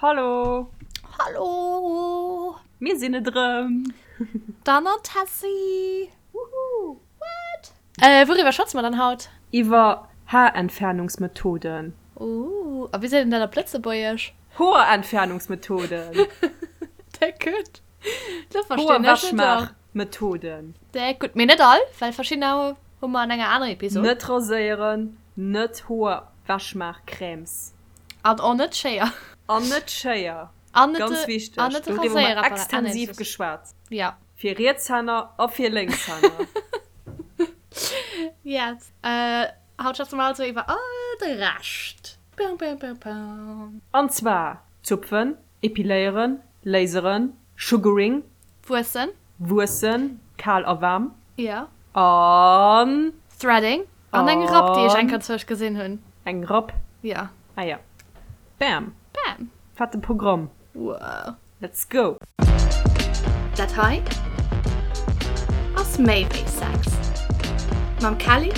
Hallo! Hallo! Mir sinn et erëm! D'Anne an d'Tessy! Woohoo! What? Wouriwwer schwätze mer dann haut? Iwwer Haarentfernungsmethoden. Ooh, a wéi seet een dat op Lëtzebuergesch? Hoerentfernungsmethoden. Déck gutt. Lo verstinn ech et och. Hoerwechmaachmethoden. Déck gutt. Mee net all, well verschiddener hu mer an enger anerer Episod. Net raséieren, net Hoerwechmaachcrèmes. An och net Schéier. An net Schéier. An net Ganz de, wichteg. an net de Doriwwer hu mer Raséierapparat. Ah, nee, extensiv das. geschwat. Ja. Fir Rietshänner a fir Lénkshänner. Yes. Äh, haut schwätze mer also iwwer all de Rescht. Pam, pam, pam, pam. An zwar zupfen, epiléieren, laseren, sugaring. Wuessen. Wuessen, kal a waarm. Ja. An. Threading. An eng Rapp, déi ech eng Kéier zwësch gesinn hunn. Eng Rapp? Ja. Ah ja. Bam. Bam. Fette Programm. Wow. Let's go! Dat hei ass méi wéi Sex. Mam Kelly,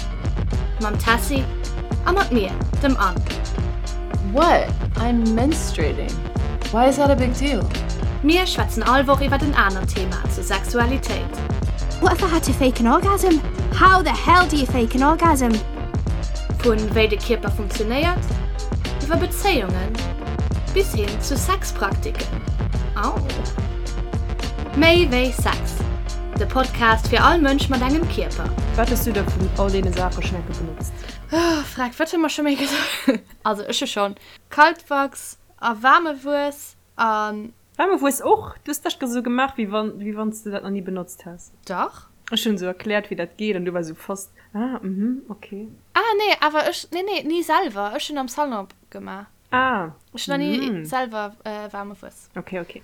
mam Tessy a mat mir, dem Anne. What? I'm menstruating. Why is that a big deal? Mir schwätzen all Woch iwwert en anert Thema zur Sexualitéit. What if I had to fake an orgasm? How the hell do you fake an orgasm? Vun wéi de Kierper funktionéiert, iwwer Bezéiungen bis hin zu Sexpraktiken. Au! Méi wéi Sex, de Podcast fir all Mënsch mat engem Kierper. Wat hues du da vun all deene Saache schonn enke benotzt? Oh freck, wat hu mer scho méi gesot? Also ech hu schonn Kaltwachs a waarme Wuess an. Waarme Wuess och? Du hues dat esou gemaach, wéi wann wéi wann s de dat nach ni benotzt häss. Dach. Ech hunn esou erkläert, wéi dat geet an du war esou fast, ah, mhm, okay. Ah nee, awer ech, nee nee, ni selwer, ech hunn am Salon gemaach. Ah, Ech hunn nach ni selwer waarme Wuess. Okay, okay.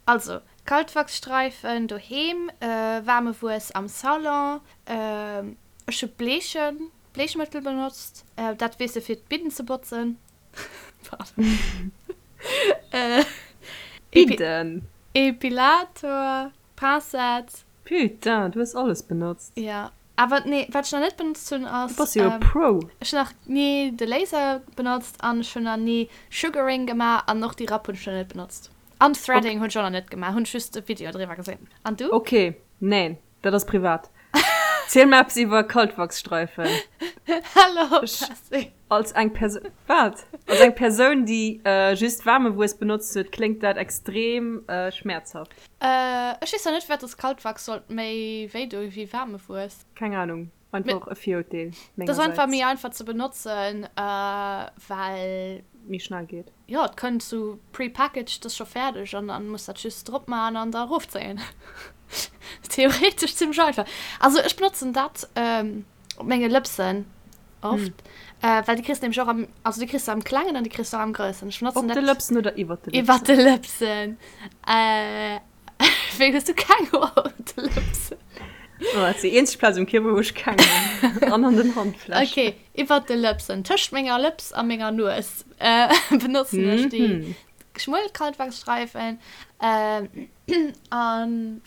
Also, Kaltwachsstreifen doheem, waarme Wuess am Salon, ech hu Bleechen, Bleechmëttel benotzt, dat weess de fir d'Bidden ze botzen. Pardon. Bidden? Epilator, Pincette. Putain, du hues alles benotzt. Ja, awer nee, wat ech nach net benotzt hunn ass. Du bass jo e Pro. Ech hunn nach ni de Laser benotzt an ech hunn nach ni Sugaring gemaach an och déi Rapp hunn ech nach net benotzt. An Threading hunn ech och nach net gemaach, hunn ech just e Video driwwer gesinn. An du? Ok, neen, dat ass privat. Ziel mer eppes iwwer Kaltwachsstreifen. Hallo, Tessy. Als eng Persoun, wat? Als eng Persoun, déi just waarme Wuess benotzt huet, kléngt dat extrem schmäerzhaft. Ech weess zwar net, firwat dass Kaltwachs sollt méi wéi doe wéi waarme Wuess. Keng Ahnung, einfach e Virurteel mengersäits. Dat ass einfach méi einfach ze benotzen, well. Méi schnell geet. Jo, et kënnt sou pre-packaged, ass scho fäerdeg an dann muss dat just drop man an da erofzéien. Theoretesch zimmlech einfach. Also ech benotzen dat op menge Lëpsen oft, well déi kriss de nämlech och am, also déi kriss de am klengen an déi kriss de och am groussen. Ech benotzen dat. Op de Lëpsen oder iwwert de Lëpsen? Iwwert de Lëpsen. Wéi hues du keng Hoer op de Lëpsen? Oh, dat ass déi eenzeg Plaz um Kierper, wou ech keng hunn. An an den Handflächen. Ok, iwwert de Lëpsen. Tëscht menger Lëps a menger Nues benotzen ech déi schmuel Kaltwachsstreifen. An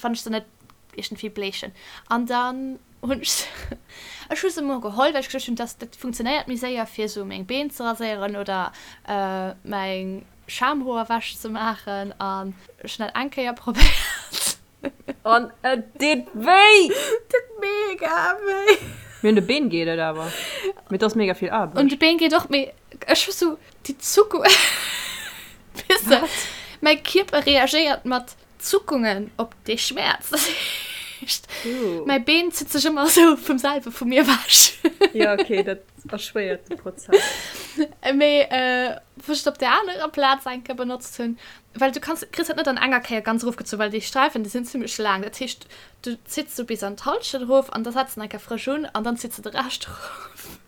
wann ech se net iergendwéi bleechen. An dann hunn ech se, ech hu se emol geholl, well ech geduecht hunn, dass dat funktionéiert méi séier, fir esou meng Been ze raséieren oder meng Schamhoer wech ze maachen an ech hun dat eng Kéier probéiert. An et deet wéi! Et deet mega wéi! Mee un de Been geet et awer. Mee et ass mega vill Aarbecht. Un de Been geet och, mee ech hu sou déi Zuckung, weess de, mäi Kierper reagéiert mat Zuckungen op dee Schmäerz. Dat heescht, mäi Been zitt sech ëmmer esou vum selwe vu mir ewech. Jo, ok, dat erschwéiert de Prozess. Mee wou ech et op där anerer Plaz eng Kéier benotzt hunn, well du kanns, kriss dat net an enger Kéier ganz erofgezu, well déi Sträifen, déi sinn zimmlech laang. Dat heescht, du zitts sou bis an d'Hallschent erof an da setz de eng Kéier frësch un an dann zitts de de Rescht erof.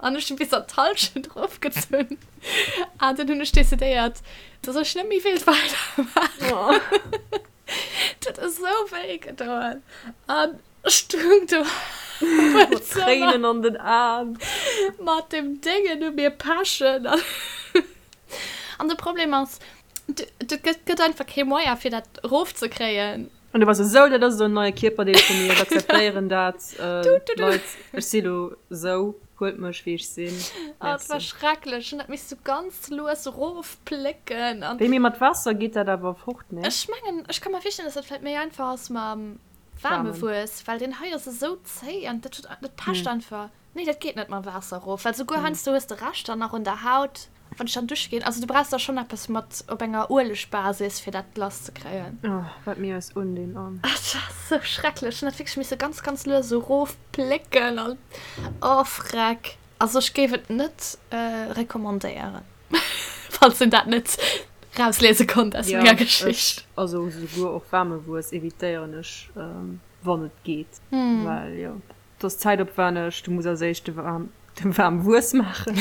An ech hunn bis an d'Hallschent erofgezunn. An dann hunn ech decidéiert, dass ech net méi wéilt weidermaachen. Dat huet esou wéi gedoen. An ech stoung do am Zëmmer. Tréinen an den Aen. Mat dem Déngen u mir pechen. An de Problem ass, et gëtt einfach kee Moyen, fir dat erofzekréien. An du wars esou, dat ass esou en neie Kierperdeel vu mir, ech akzeptéieren dat, Leit, ech si lo esou. Huelt mech wéi ech sinn. Oh, dat war schrecklech. Ech hunn dat misste ganz lues erofplécken an. Wéi, mee mat Waasser geet dat awer fort, nee? Ech mengen, ech ka mer virstellen, dass dat vläit méi einfach ass mam waarme Wuess, well deen hei ass esou zéi an dat huet, dat pecht einfach. Nee, dat geet net mam Waasser erof, well souguer heiansdo hues de Reschter nach un der Haut. Wann ech dann dusche ginn, also du brauchs da schonn eppes mat op enger Uelegbasis fir dat lass ze kréien. Oh, wat mir eis undinn an. Dat ass sou schrecklech. Ech hunn dat wierklech misse ganz ganz lues esou erof plécken an oh freck. Also ech géif et net recommandéieren, falls een dat net rausliese konnt aus menger Geschicht. Jo, ech, also souguer och waarme Wuess evitéieren ech wann et geet, well jo. Et ass zäitopwänneg, du muss als éischt de waarm Wuess maachen.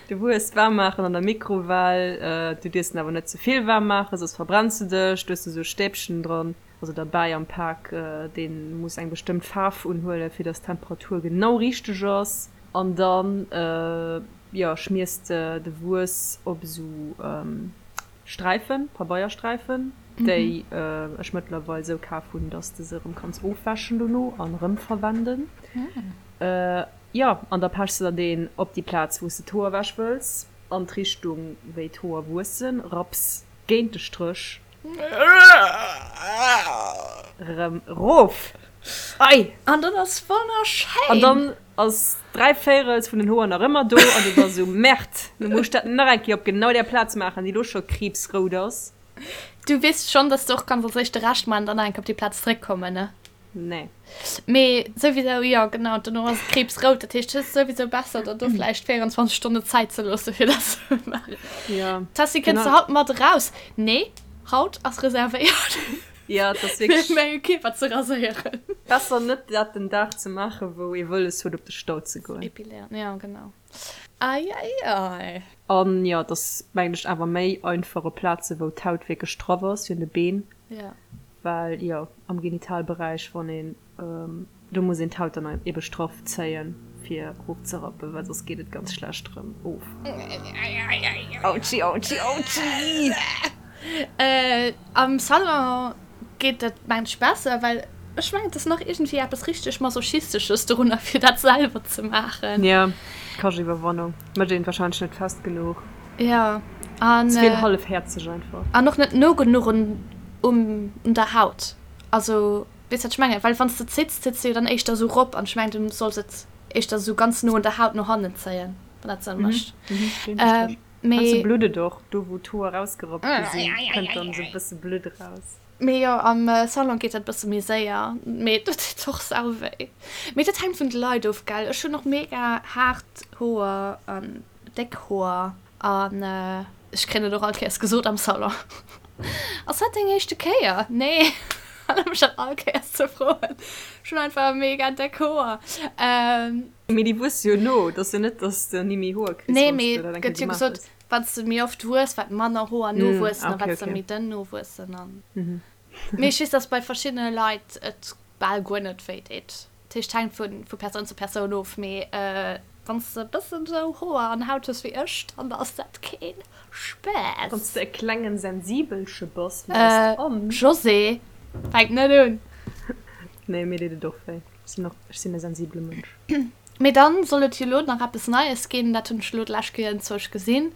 De Wuess waarm maachen an der Mikrowell. Du dierfs en awer net ze vill waarm maachen, soss verbrenns de dech. Du hues do sou e Stäbchen dran, also derbäi am Pak, dee muss eng bestëmmt Faarf unhuelen, fir dass d'Temperatur genau richteg ass. An dann, jo, schmiers de de Wuess op esou Sträifen, Pabeiersträifen, déi ech mëttlerweil sou kaf hunn, dass de se erëm kanns ofwäschen dono an erëm verwenden. Jo, an da pechs de der deen op déi Plaz, wou s de d'Hoer ewech wëlls, an d'Richtung, wéi d'Hoer wuessen, rapps géint de Stréch erëm erof. Ei! An dann ass wonnerschéin! An dann ass dräivéirels vun den Hoer nach ëmmer do an du bass esou, Merde, lo muss ech dat nach eng Kéier op genau där Plaz maachen, déi lo scho kriibsrout ass. Du weess schonn, dass du och kanns als éischt de Rescht maachen an dann nach eng Kéier op déi Plaz zréckkommen, ne? Nee. Mee souwisou, jo genau, dono ass et kriibsrout, dat heescht, et ass souwisou besser, der do vläicht 24 Stonne Zäit ze loosse fir dat ze maachen. Jo. Tessy, kënns du haut mat eraus? Nee, haut ass reservéiert. Ja, et ass wierklech. Fir menge Kierper ze raséieren. Besser net dat den Dag ze maachen, wou ee wëlles huet op de Stau ze goen. Epiléieren, jo genau. Ei ei ei. An jo, et ass mengen ech awer méi einfach op Plaze wou d'Haut wierklech straff ass, wéi un de Been. Jo. Well jo, am Genitalberäich, wann een Do muss een d'Haut dann ebe straff zéien fir erof ze rappen, well soss geet et ganz schlecht rëm of. Autschi autschi autschi! Am Salon geet dat mengen ech besser, well ech mengen et ass nach iergendwéi eppes richteg masochistesches dorunner fir dat selwer ze maachen. Jo, kascht Iwwerwannung, mécht een wahrscheinlech net fest genuch. Jo, an. Ze vill hallefhäerzeg einfach. An och net no genuch un un der Haut, also. Weess wat ech mengen? Well wanns de zitts, zitts de jo dann éischter esou rop an ech mengen du solls et éischter esou ganz no un der Haut no hannen zéien, wann dat Sënn mécht. Mee. Heiansdo blutt et och, do wou d'Hoer rausgerappt gi sinn, kënnt dann esou e bësse Blutt eraus. Mee jo, am Salon geet dat e bësse méi séier, mee dat deet och sau wéi. Mee dat hänkt vun de Leit of, gell? Ech hunn och mega haart Hoer an déck Hoer an ech kréien et och all Kéiers gesot am Salon. Ass dat deng éischte Kéier? Nee, erlaab mech dat all Kéiers ze froen. Ech hunn einfach mega déck Hoer. Mee déi wuesse jo no, et ass jo net, dass de ni méi Hoer kriss, Nee, wann s mee de dat eng Kéier gëtt jo gemaach gesot, hues. wann s de méi oft wuess, wat manner Hoer nowuessen a wat se méi dënn nowuessen an. Mee ech weess, dass bei verschiddene Leit et bal guer net wéi deet. Dat heescht, hänkt vu vu Persoun zu Persoun of, mee wann s de e bëssen esou Hoer an Haut hues wéi ech, dann ass dat keen Spaass. Wann s de e klengen Sensibelche bass wéi eist Anne. Josée, fänk net un! Nee, mir deet et och wéi. Ech sinn och, ech sinn e sensibele Mënsch. Mee dann soll et jo lo nach eppes Neies ginn, dat hunn ech lo d'lescht Kéier enzwousch gesinn,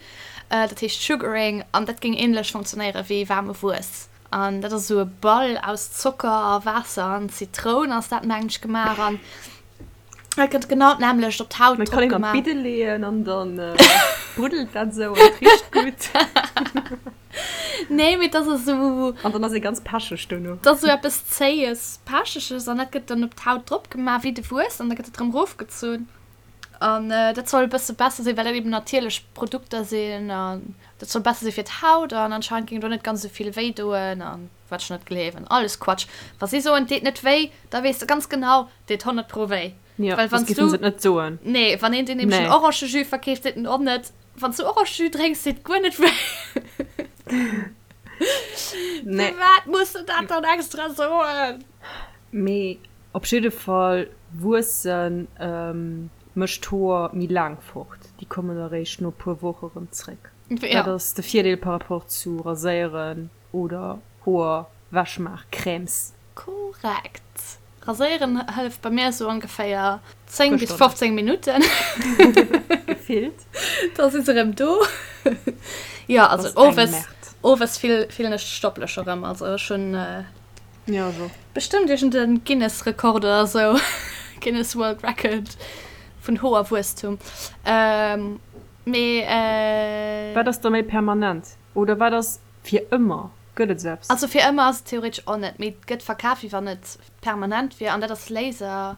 dat heescht Sugaring an dat géing ähnlech funktionéiere wéi waarme Wuess. An dat ass esou e Ball aus Zocker a Waasser an Zitroun ass dat mengen ech gemaach an dat gëtt genau d'nämmlecht op d'Haut drop gemaach. Kann een an d'Bidde leeën an dann bruddelt dat esou an et richt gutt. Nee, mee dat ass esou. An dann ass ee ganz pecheg dono. Dat ass esou eppes Zéies, Pecheges an dat gëtt dann op d'Haut drop gemaach wéi de Wuess an da gëtt et erëm erofgezunn. An dat soll e bësse besser sinn, well dat eben natierlech Produkter sinn an dat soll besser si fir d'Haut an anscheinend géing do net ganz esou vill wéi doen an wat ech net gleewen. Alles Quatsch. Wa si soen, et deet net wéi, da weess de ganz genau, et deet 100 pro wéi. Jo, Well soss wann s géifen du. se et net soen. Nee, wann een dir nämlech en Nee. Orangejus verkeeft, seet en och net, wann s du Orangejus drénks, deet guer net wéi. Nee. Firwat muss de dat dann extra soen? Mee Op jidde Fall wuessen mécht d'Hoer méi laang fort, déi kommen eréischt no puer Woche rëm zréck. Dat ass de Virdeel par rapport zu raséieren oder Hoer wechmaach Crèmes. Korrekt. Raséieren hëlleft bei mir esou ongeféier 10 bis 15 Minutten. Gefillt. Da si se erëm do. Jo, also owes, owes fillen ech d'Stoppelech erëm. Also ech hunn jo, ech och. Bestëmmt iergend e Guinness-Rekord oder esou, Guinness World Record vun Hoerwuesstum. Mee. Wat ass da méi permanent? Oder wat ass fir ëmmer? Gëtt et esou eppes? Also fir ëmmer ass et theoretesch och net, mee et gëtt verkaf wéi wann et permanent wier an dat ass Laser.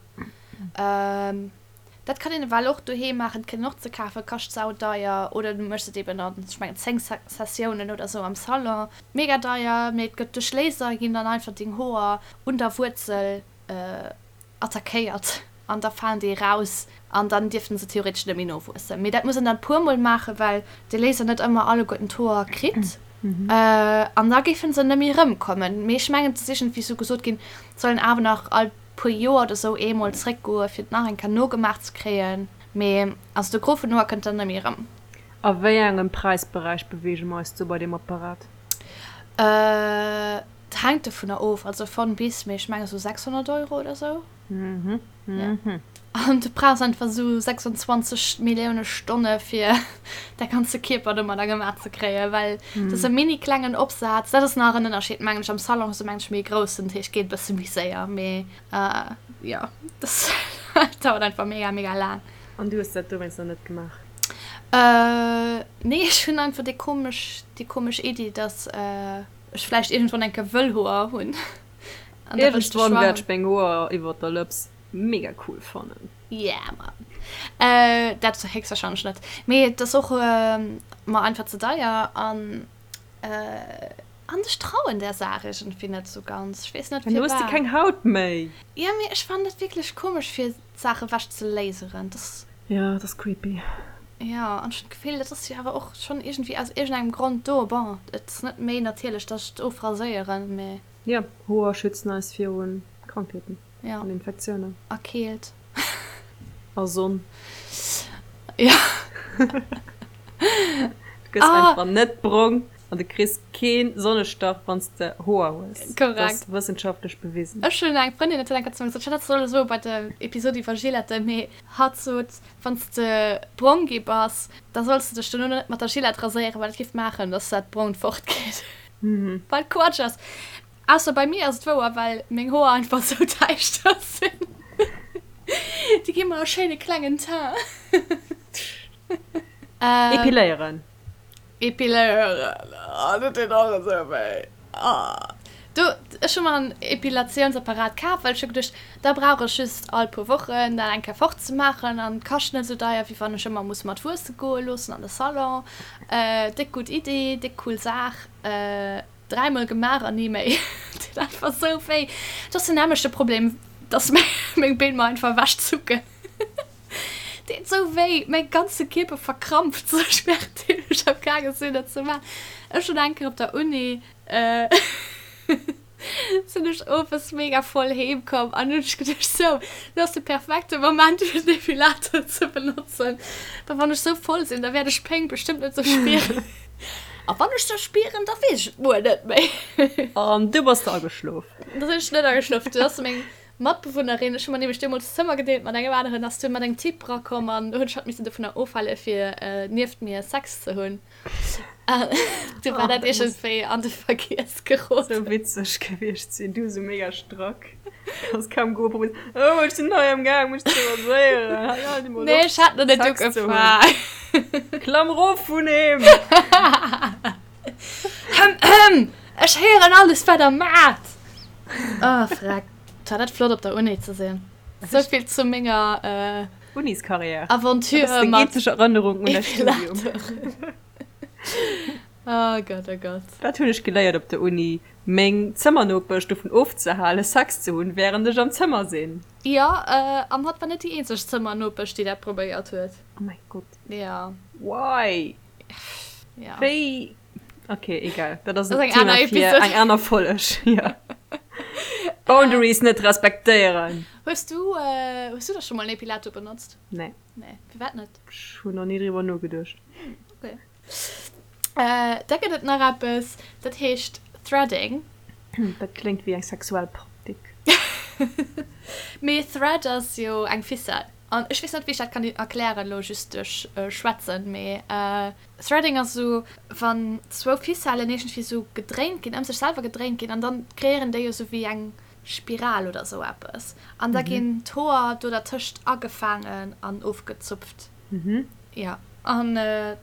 Dat kann een ewell och doheem maachen, et kritt een och ze kafen, kascht saudeier oder du méchs et eben an, ech mengen 10 Sessiounen oder esou am Salon. Mega deier, mee et gëtt duerch Laser ginn dann einfach deng Hoer un der Wuerzel attackéiert an da falen déi eraus an dann dierften se theoretesch net méi nowuessen. Mee dat muss een dann puer mol maachen, well de Laser net ëmmer alleguerten d'Hoer kritt an da géifen se net méi erëmkommen. Mee ech mengen et ass iergendwéi sou gesot ginn, et soll een awer nach all puer Joer oder sou eemol zréckgoe fir et nach eng Kéier nogemaach ze kréien. Mee also de Gros vun den Hoer kënnt dann net méi erëm. A wéi engem Präisberäich beweege mer eis do bei deem Apparat? Et hänkt dovunner of, also von bis, mee ech menge sou 600 Euro oder sou. Mhm, mhm. An du brauchs einfach sou 26 Millioune Stonne fir däi ganze Kierper domadder gemaach ze kréien, well dat ass e mini klengen Opsaz. Dat ass nach en Ënnerscheed mengen ech, am Salon hues du mengen ech méi e groussen, dat heescht geet e bësse méi séier, mee jo dat dauert einfach mega mega laang. An du hues dat dowéinst nach net gemaach? Nee, ech hunn einfach déi komesch déi komesch Iddi, dass ech vläicht iergendwann eng Kéier wëll Hoer hunn. An da wëll ech de Iergendwann wäert ech meng Hoer iwwert der Lëps mega cool fannen. Yeah man. Dat héchstwahrscheinlech net. Mee et ass och mer einfach ze deier an an ech trauen där Saach iergendwéi net esou ganz. Ech weess net Dann hues de firwat. keng Haut méi. Jo mee ech fannen dat wierklech komesch fir Saache wech ze laseren. Dat. Jo, dat ass creepy. Jo, an ech hunn d'Gefill, dat ass jo awer och schonn iergendwéi aus iergendengem Grond do. Bon, et ass net méi natierlech, dass ech et ofraséieren, mee. Jo, Hoer schützen eis viru Krankheeten an Infektiounen. A Keelt. A Sonn. Jo. Du gëss einfach net brong an du kriss kee Sonnestach, wann s de Hoer hues. Korrekt. Dat ass wëssenschaftlech bewisen. Ech hunn eng Frëndin, dat huet eng Kéier zu mir gesot, ech hat dat solle soe bei der Episod iwwer Gilette, mee hatt sot, wann s de brong gi bass, da solls de dech dono net mat der Gillette raséieren, well dat géif maachen, dass dat Brongt fortgeet. Wat Quatsch ass. Ausser bei mir ass et wouer, well meng Hoer einfach sou däischter sinn. Déi gi mer e schéine klengen Teint. Epiléieren. Epiléieren, oh dat deet och esou wéi. Oh. Du, ech hu mer en Epilatiounsapparat kaf, well ech hu geduecht, da brauch ech just all puer Wochen dat eng Kéier fort ze maachen an et kascht net esou deier, wéi wann ech ëmmer muss mat wuesse goe loossen an de Salon. Déck gutt Idee, déck cool Saach. Dräimol gemaach an ni méi. Et deet einfach esou wéi. Et ass den nämmlechte Problem, dass meng Been mer einfach ewechzucken. Et deet esou wéi, mäi ganze Kierper verkrampft sech währenddeem ech am gaange sinn dat ze maachen. Ech hunn eng Kéier op der Uni sinn ech owes mega voll heem komm an hunn ech geduecht, sou, lo ass de perfekte Moment fir den Defilator ze benotzen, well wann ech sou voll sinn, da wäert ech d'Péng bestëmmt net sou spieren. A wann ech se spieren, da weess ech et muer net méi. An du bass de ageschlof? Da sinn ech net ageschlof. Du ass meng Matbewunnerin, ech hu mer nämlech deemools d'Zëmmer gedeelt mat engem aneren, ass dunn mat engem Typ erakomm an hunn ech hatt missen dovunner ofhale fir nieft mir Sex ze hunn. Du war dat iergendwéi an de Vergiess geroden. Sou witzeg gewiescht sinn, du sou mega strack, kanns kaum goen, probéiers, oh ech sinn hei am Gaang mech ze raséieren, hei halt emol op Nee, ech hat nach net Sex ze hunn. ugefaang. Klamm rof vun him! Ech héieren alles wat der maacht! Oh freck, et war dat flott op der Uni ze sinn. Souvill zu menger Uniskarriär. Aventure Dat ass deng mat eenzeg Erënnerung un däi Studium. Epilator. Oh Gott, oh Gott. Wat hunn ech geléiert op der Uni? Meng Zëmmernopesch dovun ofzehalen, Sex ze hunn, wärend ech am Zëmmer sinn. Jo, an hatt war net déi eenzeg Zëmmernopesch, déi dat probéiert huet. Oh mäi Gott. Jo. Why? Jo. Wéi? Ok, egal. Dat ass Dat en ass eng aner Thema fir Episode. eng aner Folleg. Jo. Boundaries net respektéieren. Hues du, hues du da scho mol en Epilator benotzt? Nee. Nee, firwat net? Ech hunn nach ni driwwer nogeduecht. Ok. Da gëtt et nach eppes, dat heescht Threading. Dat kléngt wéi eng sexuell Praktik. Mee Thread ass jo eng Ficelle. An ech weess net, wéi ech dat kann erklären elo just duerch Schwätzen, mee Threading ass esou, wann zwou Ficellen iergendwéi esou gedréint ginn, ëm sech selwer gedréint ginn an dann kreéieren déi jo esou wéi eng Spiral oder esou eppes. An da ginn d'Hoer do dertëscht agefaangen an ofgezupft. Jo, an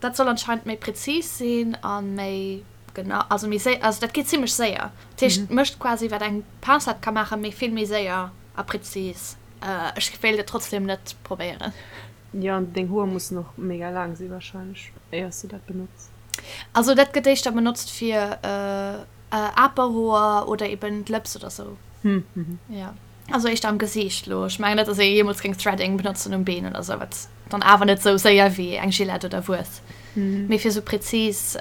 dat soll anscheinend méi präzis sinn a méi genau, also méi séier, also dat geet zimmlech séier. Dat heescht, et mécht quasi wat eng Pincette ka maachen, mee vill méi séier a präzis. Ech wéilt et trotzdem net probéieren. Jo, an deng Hoer mussen och mega laang si wahrscheinlech, éiers de dat benotz. Also dat gëtt éischter benotzt fir Aperhoer oder eben d'Lëps oder sou. Jo. Also éischter am Gesiicht lo. Ech mengen net, dass ee jeemools géing Threading benotzen um Been oder sou, wat dann awer net sou séier wéi eng Gillette oder Wuess. Mee fir sou präzis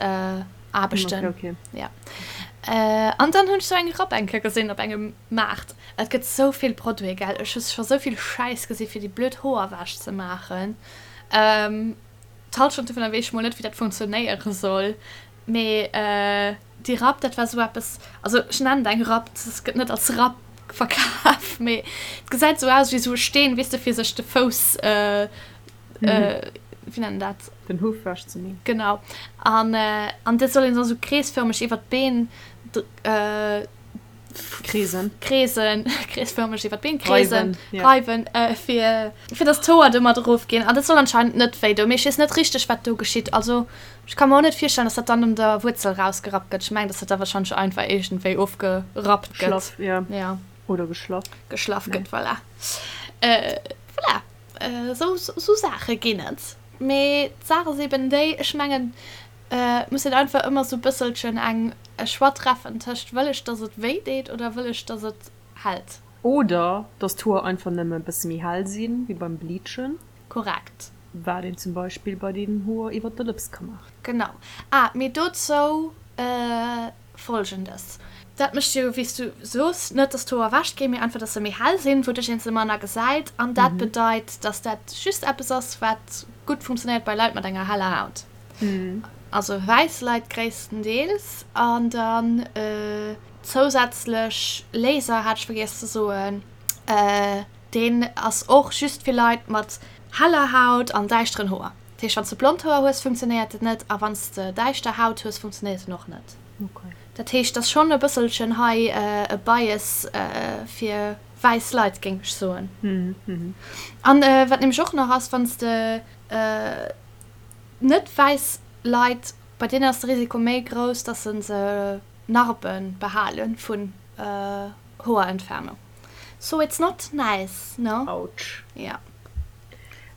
Aarbechten. Okay, okay. Ja. An dann hunn ech sou eng Rapp eng Kéier gesinn op engem Maart. Et gëtt sou vill Produite, gell. Ech hu scho sou vill Schäiss gesi fir déi blöd Hoer wech ze maachen. D'Halschent dovunner weess ech mol net, wéi dat funktionéiere soll. Mee déi Rapp, dat war esou eppes, also ech nennen et eng Rapp, et gëtt net als Rapp verkaf, mee et gesäit esou aus wéi esou e Steen, weess de, fir sech de Fouss, wéi nennt een dat? Den Huff wech ze man. Genau. An an dat soll een da sou kreesfërmeg iwwer d'Been Kreesen. Kreesen, kreesfërmeg iwwer d'Been kreesen, reiwen, fir, fir dass d'Hoer domat erofginn. An dat soll anscheinend net wéi doen, mee ech weess net richteg, wat do geschitt. Also ech ka mer och net virstellen, dass dat dann un der Wuerzel rausgerappt gëtt. Ech mengen, dass dat da wahrscheinlech einfach iergendwéi ofgerappt gëtt. Schlaff, ja. Ja. Oder geschlaff. Geschlaff gëtt, voilà. Voilà, esou, esou Saache ginn et. Mee d'Saach ass eben déi, ech mengen, Et muss een einfach ëmmer sou bësselchen eng e Choix treffen tëscht wëll ech dass et wéi deet oder wëll ech dass et hält. Oder dass d'Hoer einfach nëmme e bësse méi hell sinn, wéi beim Bleachen. Korrekt. Wat een zum Beispill bei den Hoer iwwert der Lëps ka maachen. Genau. Ah, mee dozou Folgendes, Dat mécht jo, wéi s du soos, net dass d'Hoer ewech ginn, mee einfach dass se méi hell sinn, wouduerch een se manner gesäit. An dat bedeit, dass dat just eppes ass, wat gutt funktionéiert bei Leit mat enger heller Haut. Also wäiss Leit gréisstendeels. An dann zousätzlech Laser hat ech vergiess ze soen, deen ass och just fir Leit mat heller Haut an däischteren Hoer. Dat heescht, wann s de blond Hoer hues, funktionéiert et net a wann s de däischter Haut hues, funktionéiert en och net. Dat heescht, et ass schonn e bësselchen hei e Bias fir wäiss Leit, géing ech soen. An wat nämlech och nach ass, wann s de Net wäiss Leit, bei deenen ass de Risiko méi grouss, dass se se Narbe behale vun Hoerentfernung. So it's not nice, no? Autsch. Ja.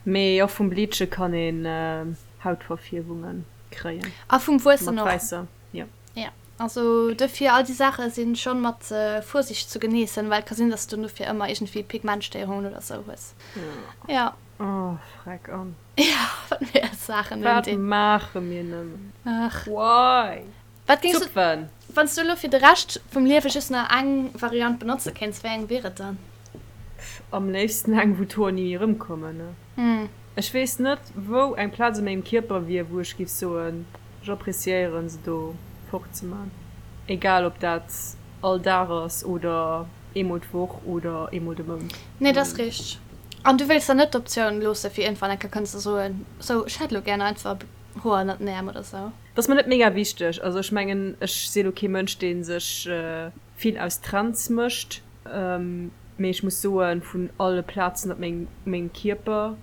Mee och vum Bleache kann een Hautverfierwunge kréien. A vum Wuessen och. Mat wäisser, jo. Ja, also dofir, all déi Saache si schonn mat Vorsicht zu geniessen, well et ka sinn, dass du dofir ëmmer iergendwéi Pigmentstéierungen oder sou hues. Ja. Oh, freck an. Ja, wat mir als Saachen Wat undinn. maache mir nëmmen? Ach. Why? Wat géings du, Zupfen! wann s du elo fir de Rescht vum Liewe just nach eng Variant benotze kéints, wéi eng wier et dann? Am léifsten eng, wou d'Hoer ni méi erëmkommen, ne? Ech weess net, wou eng Plaz u mengem Kierper wier, wou ech géif soen, ech appreciéieren se do fort ze man. Egal ob dat all Dag ass oder eemol d'Woch oder eemol de Mount. Nee, dat ass richteg. An du wéilts der net d'Optioun loosse fir iergendwann eng Kéier kënnen ze soen, sou ech hätt elo gären einfach Hoer ënnert den Äerm oder sou? Dat ass mer net mega wichteg. Also ech mengen, ech si elo kee Mënsch, dee sech vill aus Trends mécht, mee ech muss soen, vun alle Plazen op mengem Kierper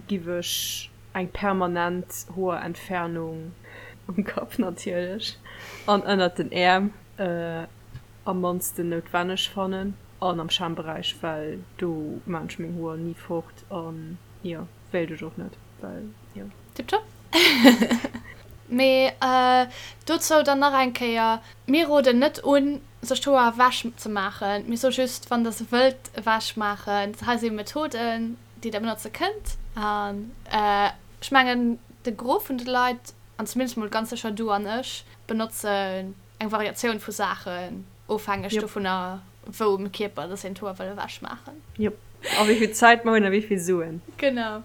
giff ech eng permanent Hoerentfernung um Kapp natierlech an ënnert den Äerm am mannsten noutwenneg fannen an am Schamberäich, well do maan ech meng Hoer ni fort an jo, wéilt ech och net, well jo. Tiptop. Mee dozou dann nach eng Kéier, Mir roden net un, sech d'Hoer ewech ze maachen. Mir soe just, wann der se wëllt ewech maachen, hei si Methoden, déi der benotze kënnt. An ech mengen, de Gros vun de Leit, an zumindest mol ganz sécher du an ech, benotzen eng Variatioun vu Saachen, ofhängeg dovunner, wou um Kierper dass een d'Hoer wëll ewech maachen. Jop. A wéi vill Zäit mer hunn a wéi vill Suen. Genau.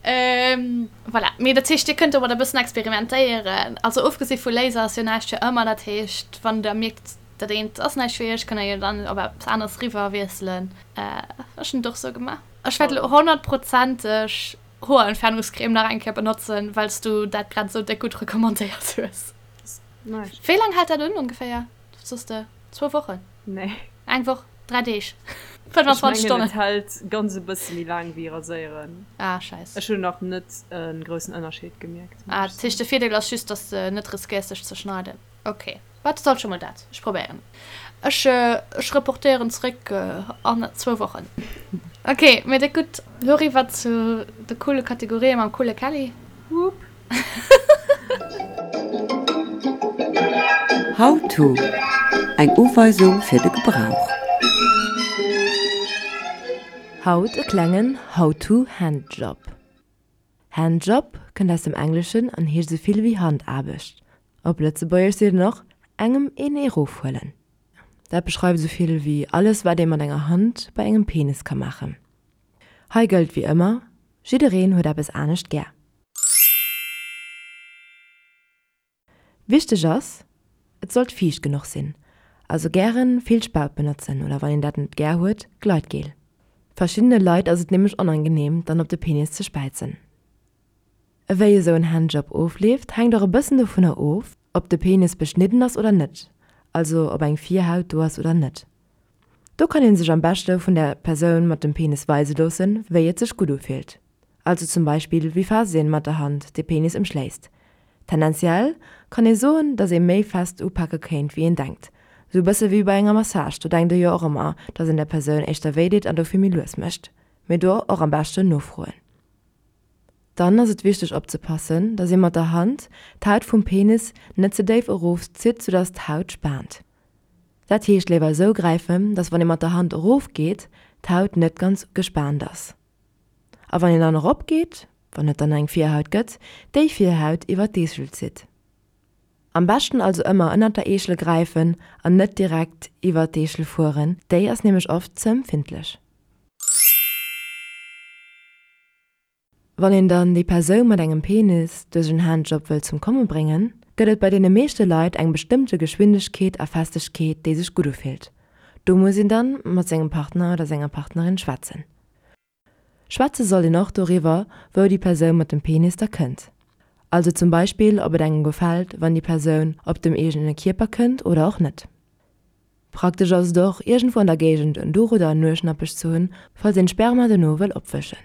Voilà. Mee dat heescht, Dir kënnt domat e bëssen experimentéieren. Also ofgesi vu Laser ass jo näischt fir ëmmer. Dat heescht, wann Der mierkt, Dat eent ass näischt fir iech, kënnt der jo dann op eppes aneres riwwer wiesselen. Ech hunn et och sou gemaach. Ech wäert elo honnertprozenteg Hoerentfernungscreme nach eng Kéier benotzen, well s du dat grad esou déck gutt recommandéiert hues. Nice. Wéi laang hält dat un ongeféier? Wat soss de? Zwou Wochen? Nee. Eng Woch? 3 Deeg? 25 Ech mengen Stonnen? et hält ganz e bësse méi laang wéi raséieren. Ah, scheiss. Ech hunn nach net e groussen Ënnerscheed gemierkt, muss Ah, ech dat heescht soen. de Virdeel ass just, dass de net riskéiers dech ze schneiden. Ok, wat ass alt scho mol dat? Ech probéieren et. Ech, ech reportéieren zréck an zwou Wochen. Ok, mee déck gutt. Lo eriwwer zu de coole Kategorien mam coole Kelly. Wupp. How to, Eng Uweisung fir de Gebrauch. Haut e klengen How to Handjob. Handjob kënnt aus dem Engleschen an heescht esou vill wéi Handaarbecht. Op Lëtzebuergesch seet een och engem een erofhuelen. Dat beschreift esou vill wéi alles wat ee mat enger Hand bei engem Penis ka maachen. Hei gëllt wéi ëmmer, jiddereen huet eppes anescht gär. Wichteg ass, et sollt fiicht genuch sinn, also gären vill Spaut benotzen oder wann een dat net gär huet, Gleitgel. Verschiddene Leit ass et nämlech onangenehm dann op de Penis ze späizen. Ewéi esou en Handjob ofleeft hänkt och e bëssen dovunner of, ob de Penis beschnidden ass oder net, also ob eng Virhaut do ass oder net. Do kann een sech am beschte vun der Persoun mat dem Penis weise loossen, wéi et sech gutt ufillt. Also zum Beispill wéi fest een mat der Hand de Penis ëmschléisst. Tendenziell kann ee soen, dass ee méi fest upake kéint wéi een denkt. Sou bësse wéi bei enger Massage, do denkt ee jo och ëmmer, dass een der Persoun éischter wéi deet an dofir méi lues mécht. Mee do och am beschten nofroen. Dann ass et wichteg opzepassen, dass ee mat der Hand d'Haut vum Penis net ze déif erof zitt, soudass d'Haut spaant. Dat heescht léiwer esou gräifen, dass wann ee mat der Hand erof geet, d'Haut net ganz gespaant ass. A wann een dann erop geet, wann et dann eng Virhaut gëtt, déi Virhaut iwwer d'Eeschel zitt. Am beschten also ëmmer ënnert der Eeschel gräifen an net direkt iwwer d'Eeschel fueren, déi ass nämlech oft ze empfindlech. Wann een dann déi Persoun mat engem Penis duerch en Handjob wëll zum Komme bréngen, gëtt et bei deene meeschte Leit eng bestëmmte Geschwindegkeet a Festegkeet, déi sech gutt ufillt. Do muss een dann mat sengem Partner oder senger Partnerin schwätzen. Schwätze sollt een och doriwwer, wou déi Persoun mat dem Penis da kënnt. Also zum Beispill, ob et engem gefält, wann déi Persoun op dem eegene Kierper kënnt oder och net. Praktesch ass et och, iergendwou an der Géigend en Duch oder en Nueschnappech ze hunn, falls een d'Sperma dono wëll opwëschen.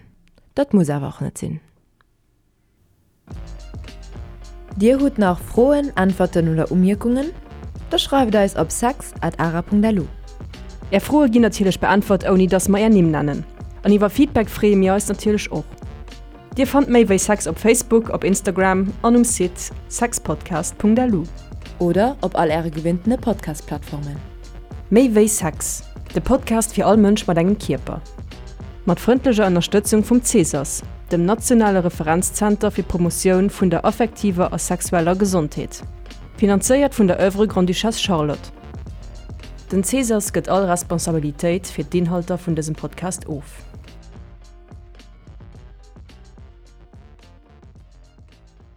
Dat muss awer och net sinn. Dir hutt nach Froen, Äntwerten oder Umierkungen? Da schreift eis op sex at ara.lu. Är Froe ginn natierlech beäntwert ouni dass mer är Nimm nennen. An iwwer Feedback freeë mir eis natierlech och. Dir fannt méi wéi Sex op Facebook, op Instagram an um Site sexpodcast.lu. Oder op all äre gewinntene Podcast-Plattformen. Méi wéi Sex, de Podcast fir all Mënsch mat engem Kierper. Mat frëndlecher Ënnerstëtzung vum CSAS, dem nationale Referenzzenter fir d'Promotioun vun der affektiver a sexueller Gesondheet. Finanzéiert vun der Oeuvre Grande-Duchesse Charlotte. Den CSAS gëtt all Responsabilitéit fir d'Inhalter vun dësem Podcast of.